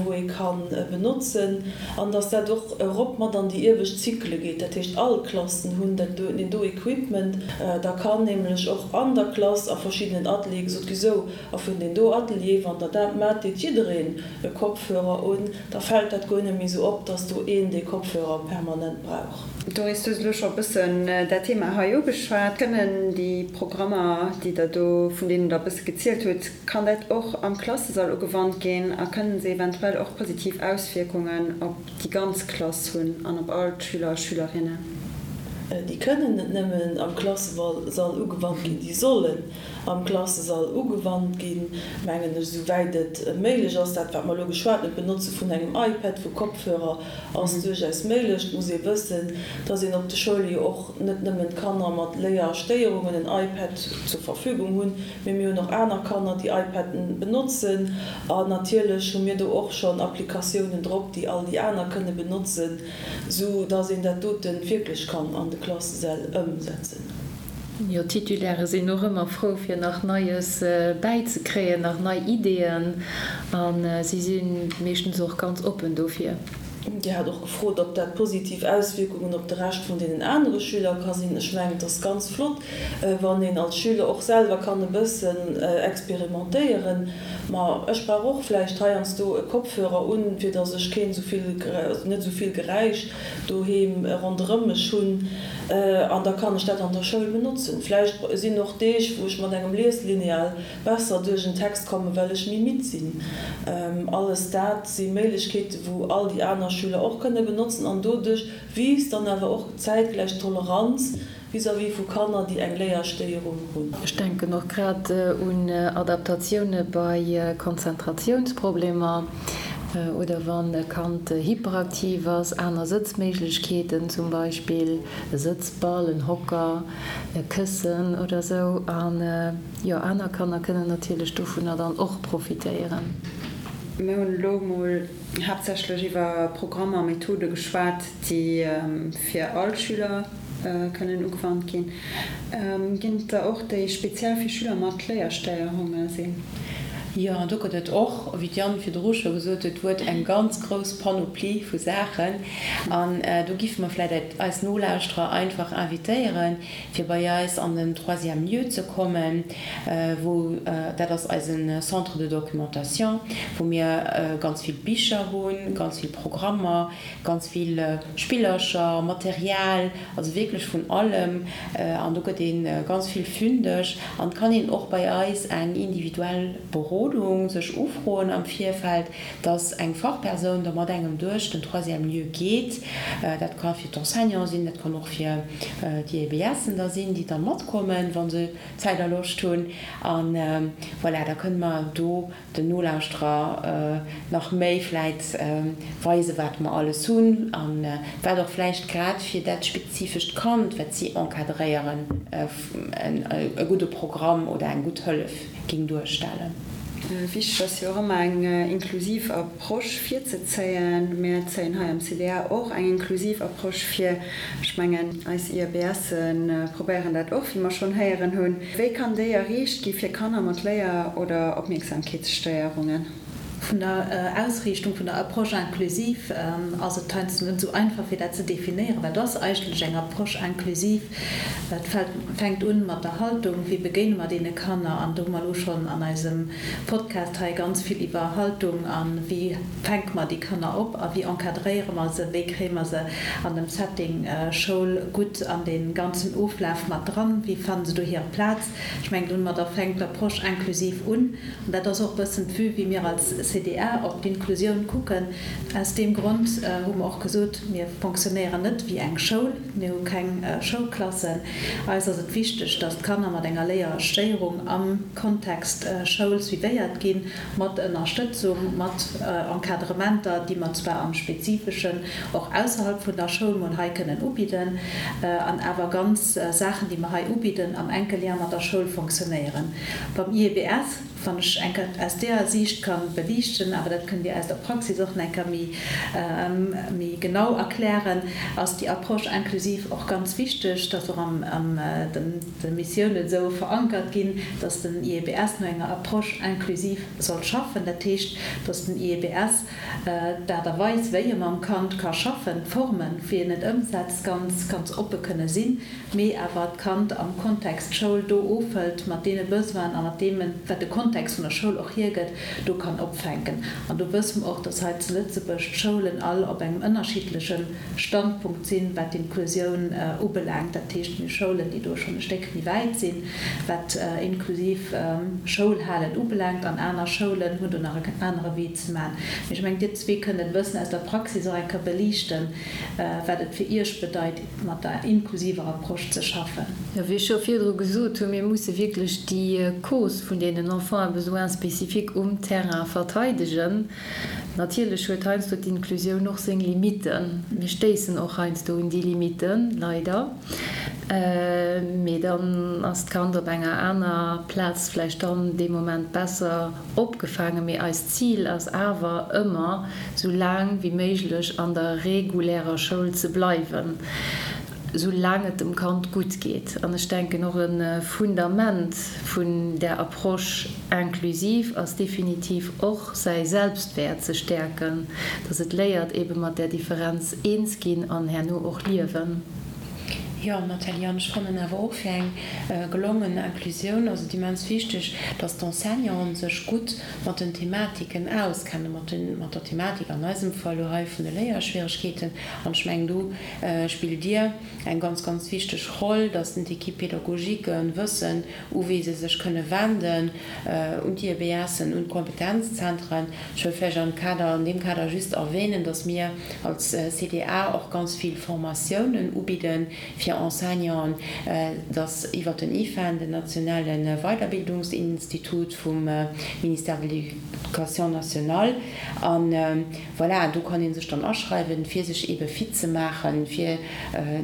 wou ee ka benotzen, an dass dat och erop mat an déi iewescht Zykle geet. Dat heescht, all Klassen hunn dat do, deen do Equipment. Da kann nämlech och an der Klass a verschiddenen Ateliere gesot gi, Sou, a vun deen do Atelier, wann Der dat maacht, deet jiddereen e Kopfhörer un, da fält dat guer net méi sou op, dass do een dee Kopfhörer permanent brauch. Doris, du hues elo scho e bëssen dat Thema hei ugeschwat. Kënnen déi Programmer, déi Der do, vun deenen Der e bësse gezielt hutt, Kann dat och am Klassesall ugewannt ginn a kënnen se eventuell och positiv Auswierkungen op déi ganz Klass hunn an op all d'Schüler a Schülerinnen? Déi kënnen net nëmmen am Klassesall ugewannt ginn, déi sollen am Klassesall ugewannt ginn, mengen ech, esou wäit et méiglech ass. Dat, wat mer elo geschwat hunn, d'Benotze vun engem iPad, vu Kopfhörer, ass duerchaus méiglech. Et muss ee wëssen, dass een op de Schoule jo och net nëmmen d'Kanner mat Léierstéierungen en iPad zur Verfügung hunn, Mee mir hunn och aner Kanner, déi iPaden benotzen. An natierlech hu mir do och schonn Applikatiounen drop, déi all déi aner kënne benotzen, sou dass een dat dote wierklech kann an de Klassesäll ëmsetzen. Jo, d'Titulairë sinn och ëmmer frou, fir nach Neies bäizekréien, nach nei Ideeën. A si si meeschtens och ganz oppen dofir. Dir hat och gefrot, ob dat positiv Auswierkungen op de Rescht vun deenen anere Schüler ka sinn. Ech mengen, et ass ganz flott, wann een als Schüler och selwer kann e bëssen experimentéieren. Ma ech brauch och vläicht heiansdo e Kopfhörer un, fir datt ech keen esou vill, net esou vill Geräisch doheem ronderëm mech hunn. An da kann ech dat an der Schoul benotzen. Vläicht sinn och Deeg, wou ech mat engem Lieslineal besser duerch en Text kommen, well ech méi midd sinn. Alles dat si Méiglechkeeten, wou all déi aner Schüler och kënne benotzen an doduerch wiisst dann awer och zäitgläich d'Toleranz vis-à-vis vu Kanner, déi eng Léierstéierung hunn. Ech denken och grad un Adaptatioune bei Konzentratiounsproblemer oder wann e Kand hyperaktiv ass, aner Sëtzméiglechkeeten, zum Beispill e Sëtzball, en Hocker, e Këssen oder sou. Jo, aner Kanner kënnen natierlech dovunner dann och profitéieren. Mir hunn elo emol haaptsächlech iwwer Programmer a Methode geschwat, déi fir all Schüler kënnen ugewannt ginn. Ginn et der och, déi speziell fir Schüler mat Léierstéierunge sinn? Jo, an do gëtt et och, wéi d'Diane virdru scho gesot huet, huet eng ganz grouss Panoplie vu Saachen. An do giffe mer vläicht eis Nolauschterer einfach invitéieren, fir bei eis an den troisième lieu ze kommen, wou, dat ass eise Centre de documentation, wou mir ganz vill Bicher hunn, ganz vill Programmer, ganz vill Spillercher, Material, also wierklech vun allem. An do gëtt ee ganz vill fündeg. An et kann een och bei eis eng individuell Berodung sech ufroen am Virfeld, dass eng Fachpersoun da mat engem duerch den troisième lieu geet. Dat ka fir d'Enseignanten sinn, dat kann och fir déi EBSen da sinn, déi da matkommen, wa se Zäit a Loscht hunn. A voilà, da kënne mer do den Nolauschterer nach méi vläit weisen, wat mer alles hunn a wat och vläicht grad fir dat spezifescht Kand, wat si encadréieren, e gudde Programm oder eng gutt Hëllef géing duerstellen. Wichteg ass jo och ëmmer eng inklusiv Approche virzezéien. Mir zéien hei am CDA och eng inklusiv Approche vir. Ech mengen, eis IABSe probéieren dat och, wéi mer schonn héieren hunn. Wéi kann déi erreecht gi fir Kanner mat Léier oder Opmierksamkeetsstéierungen? Vun der Ausriichtung vun der Approche inclusive ass et heiansdo net esou einfach, fir dat ze definéieren. Wat ass eigentlech eng Approche inclusive? Et fänkt un mat der Haltung, Wéi begéine mer deene Kanner? An do hu mer elo schonn an eisem Podcast hei ganz vill iwwer Haltung a wéi fänke mer déi Kanner op a wéi encadréiere mer se, wéi kréie mer se an dem Setting Schoul gutt an dee ganzen Oflaf mat dran, wéi fanne se do hir Plaz? Ech mengen, domadder fänkt d'Approche inclusive un. An dat ass och e bëssen d'Vue, wéi mir als CDA. CDA op d'Inklusioun kucken. Aus deem Grond hu mer och gesot, mir fonctionnéieren net wéi eng Schoul, mir hu keng Schoulklassen. Eis ass et wichteg, dass d'Kanner mat enger Léierstéierung am Kontext Schoul suivéiert ginn, mat Ënnerstëtzung, mat Encadrementer, déi mer zwar am Spezifeschen och ausserhalb vun der Schoul mol hei kënnen ubidden, an awer ganz Saachen, déi mer hei ubidden, am enke Lien mat der Schoul fonctionnéieren. Beim IEBS, wann ech eng Kéier aus deeër Siicht ka beliichten, awer dat kënnt Dir aus der Praxis och nach eng Kéier méi, méi genau erklären, ass déi Approche inclusive och ganz wichteg, dass och am, an den, de Missiounen esou verankert ginn, dass den IEBS no enger Approche inclusive soll schaffen. Dat heescht, dass den IEBS d'Aart a Weis, wéi e mam Kand ka schaffen, d'Formen, wéi en et ëmsetzt, ganz, ganz oppe kënne sinn, mee awer d'Kand am Kontext Schoul do ofhëlt mat deene Besoinen a mat deem, wat de Kontext vun der Schoul och hiergëtt, do kann opfänken. An do wësse mer och, dass hei zu Lëtzebuerg d'Schoulen all op engem ënnerschiddleche Standpunkt sinn, wat d'Inklusioun ubelaangt. Dat heescht, mir hu Schoulen, déi do schonn e Stéck méi wäit sinn, wat inklusiv Schoulhalen ubelaangt, an aner Schoulen hunn do nach en anere Wee ze maachen. Mee ech mengen, Dir zwee kënnt et e bëssen aus der Praxis och eng Kéier beliichten, wat et fir Iech bedeit, mat der inklusiver Approche ze schaffen. Jo, wéi ech scho virdru gesot hunn, mir musse wierklech déi Cause vun deenen Enfants à besoins spécifiques um Terrain verteidegen. Natierlech huet heiansdo d'Inklusioun och seng Limitten. Mir stéissen och heiansdo un déi Limitten, leider. Mee dann ass d'Kand op enger aner Plaz vläicht dann dee Moment besser opgefaangen. Mee eist Zil ass awer ëmmer, sou laang wéi méiglech an der regulärer Schoul ze bleiwen. Sou laang et dem Kand gutt geet. An ech denken och e Fundament vun där Approche inclusive ass definitiv och säi Selbstwäert ze stäerken, dass et léiert ebe mat där Differenz eens ginn an herno och liewen. Jo, Nathalie, an ech fannen awer och fir eng gelongen Inclusioun ass et immens wichteg, dass d'Enseignanten sech gutt mat den Thematiken auskennen, mat den, mat der Thematik an eisem Fall elo hei vun de Léierschwieregkeeten. An ech mengen do spillt Dir eng ganz, ganz wichteg Roll, dass den d'Équipe pédagogique wëssen, u wee se sech kënne wenden, un d'IEBSen, un d'Kompetenzzentren. Ech wëll vläicht am Kader, an deem Kader just erwähnen, dass mir als CDA och ganz vill Formatiounen ubidde fir Enseignanten, dass iwwert den IFEN, den nationale Weiderbildungsinstitut vum Ministère de l'Éducation nationale, an Voilà, do kann ee sech dann aschreiwen, fir sech eebe fit ze maachen, fir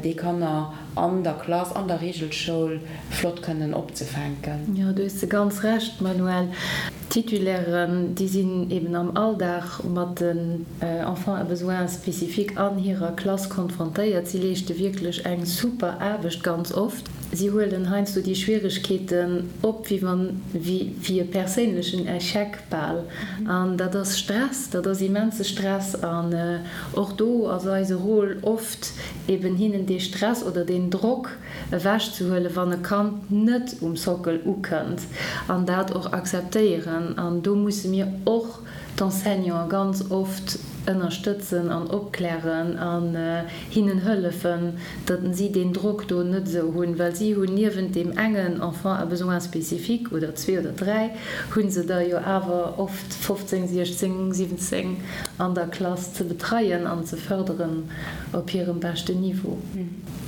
déi Kanner an der Klass, an der Reegelschoul flott kënnen opzefänken. Jo, do hues de ganz Recht, Manuel. D'Titulairen, déi sinn eeben am Alldag mat den Enfants à besoins spécifiques an hirer Klass konfrontéiert. Si leeschte wierklech eng super Aarbecht ganz oft. Si huelen heiansdo déi Schwieregkeeten op, wéi wann, wéi e perséinlechen Echec. Bal. An dat ass Stress, dat ass immense Stress. An och do ass eise Rôle oft eben hinnen dee Stress oder deen Drock ewechzehuelen, wann e Kand net um Sockel ukënnt an dat och akzeptéieren. An do musse mir och d'Enseignanten ganz oft ënnerstëtzen an opklären an hinnen hëllefen, datt si deen Drock do net esou hunn, well si hunn niewent deem engen Enfant à besoins spécifiques oder zwee oder dräi, hu se der jo awer oft 15, 16, 17 an der Klass ze betreien an ze fërderen op hirem beschten Niveau.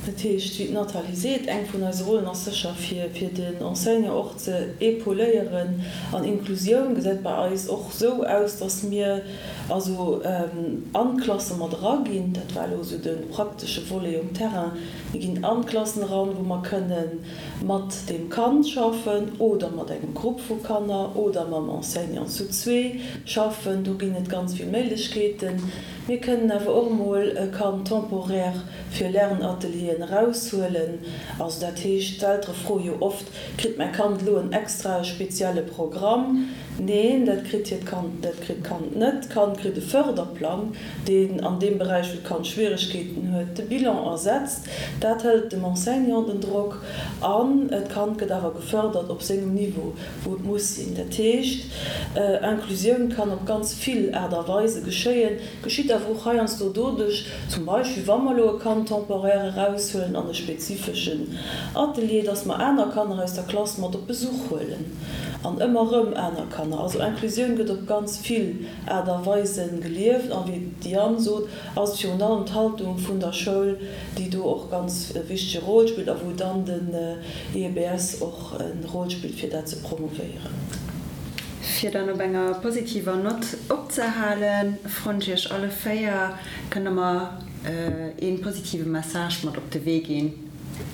Dat heescht, wéi d'Nathalie seet, eng vun eise Rollen ass sécher fir den Enseignant och ze épauléieren. An Inklusioun gesäit bei eis och esou aus, datt mir also an d'Klasse mat eraginn. Dat war elo esou de praktesche Volet um Terrain. Mir ginn an d'Klassen eran, wou mer kënne mat deem Kand schaffen oder mat engem Grupp vu Kanner oder mam Enseignant zu zwee schaffen. Do ginn et ganz vill Méiglechkeeten. Mir kënnen awer och emol e Kand temporaire fir Lernatelieren eraushuelen. Also dat heescht, d'Eltere froe jo oft, Kritt mäi Kand elo en extrae spezielle Programm? Neen, dat kritt hiert Kand, dat kritt d'Kand net. D'Kand kritt e Fërderplang, deen an deem Beräich, wou d'Kand Schwieregkeeten huet, de Bilan ersetzt. Dat hëlt dem Enseignant den Drock an d'Kand gëtt awer gefërdert op sengem Niveau, wou et muss sinn. Dat heescht, Inclusioun kann op ganz vill Aart a Weise geschéien, geschitt awer och heiansdo doduerch, zum Beispill wa mer elo e Kand temporaire eraushuelen an e spezifeschen Atelier, dass mer aner Kanner aus der Klass mat op Besuch huelen. An ëmmer erëm aner Kanner. Also Inclusioun gëtt op ganz vill Aart a Weisen gelieft. An wéi d'Diane sot, ass et virun allem d'Haltung vun der Schoul, déi do och ganz e wichtege Rôle spillt a wou dann den IEBS och e Rôle spillt, fir dat ze promouvéieren. Fir dann op enger positiver Nott opzehalen, froen ech Iech alle 4, Kënnt Der mer ee positive Message mat op de Wee ginn?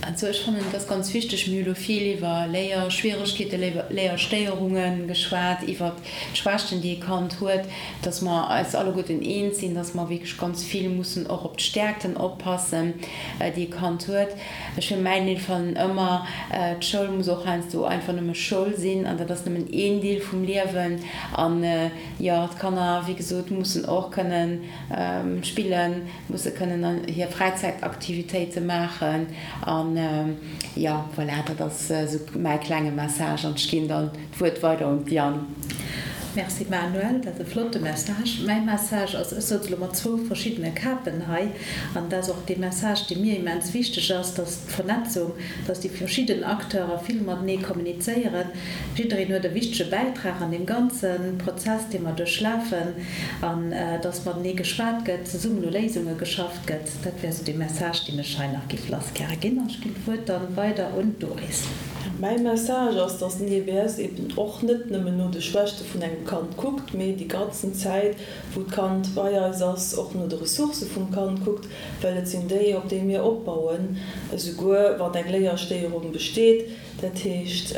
Also ech fannen, et ass ganz wichteg, mir hu lo vill iwwer Léierschwieregkeeten, Léierstéierunge geschwat, iwwert d'Schwächten, déi e Kand huet, dass mer eis alleguerten eens sinn, dass mer wierklech ganz vill mussen och op d'Stäerkten oppassen, déi e Kand huet. Ech fir mäin Deel fannen ëmmer, d'Schoul muss och heiansdo einfach nëmme Schoul sinn an dat ass nëmmen een Deel vum Liewen. An jo, d'Kanner, wéi gesot, mussen och kënnen spillen, Musse kënnen hir Fräizäitaktivitéite maachen an jo, voilà, dat ass esou mäi klenge Message an ech ginn dann d'Wuert weider un d'Diane. Merci Manuel, dat ass e flotte Message. Mäi Message ass, ech souz elo mat zwou verschiddene Kapen hei, an dat ass och dee Message, dee mir immens wichteg ass, dass d'Vernetzung, dass déi verschidden Acteure vill matenee kommunizéieren. Jiddereen huet e wichtege Bäitrag an deem ganze Prozess, dee mer duerchlafen, an dass matenee geschwat gëtt, zesummen u Léisunge geschafft gëtt. Dat wär esou dee Message, deen ech hei nach géif lassgäre ginn. An ech ginn d'Wuert dann weider un d'Doris. Mäi Message ass, dass den IBS eben och net nëmmen no de Schwächte vun engem Kand kuckt, mee déi ganzen Zäit, wou d'Kand bei eis ass, och no de Ressourcë vum Kand kuckt, well et sinn déi, op déi mir opbauen, esouguer wann eng Léierstéierung besteet. Dat heescht,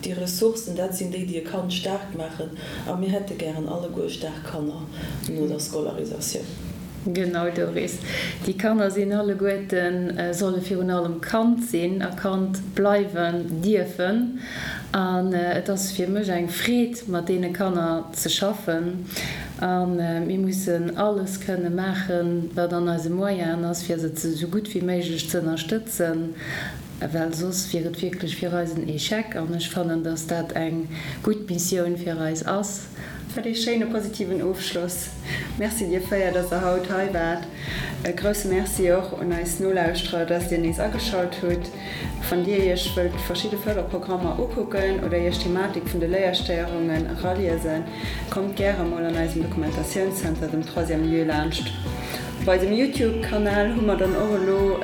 déi Ressourcen, dat sinn déi, déi e Kand staark maachen. A mir hätte gären alleguer staark Kanner no der Scolarisatioun. Genau, Doris. Déi Kanner sinn alleguerten, solle virun allem Kand sinn a Kand bleiwen dierfen. An et ass fir mech eng Freed, mat deene Kanner ze schaffen. A mir mussen alles kënne maachen, wat an eise Moyenen ass, fir se esou gutt wéi méiglech ze ënnerstëtzen, well soss wier et wierklech fir eis en Echec. An ech fannen, dass dat eng gutt Missioun fir eis ass. Wat ee schéine positiven Ofschloss. Merci dir 4, dass der haut hei waart. E grousse Merci och un eis Nolauschterer, dass dir nees ageschalt hutt. Wann dir iech wëllt verschidde Fërderprogrammer ukucken oder iech d'Thematik vun de Léierstéierungen eraliesen, kommt gäre mol an eisem Dokumentatiounszenter, dem Troisième Lieu, laanscht. Op eisem Youtube Kanal hu mer dann och elo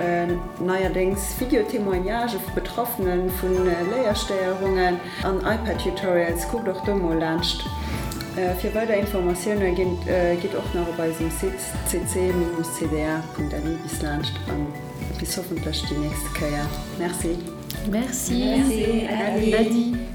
neierdéngs Video-Témoignagë vu Betraffene vu Léierstéierungen an iPad Tutorials. Kuckt och do mol laanscht. Fir weider Informatioune gitt och nach op eisem Site cc-cda.lu bis laanscht an bis hoffentlech déi nächste Kéier. Merci. Merci. Äddi.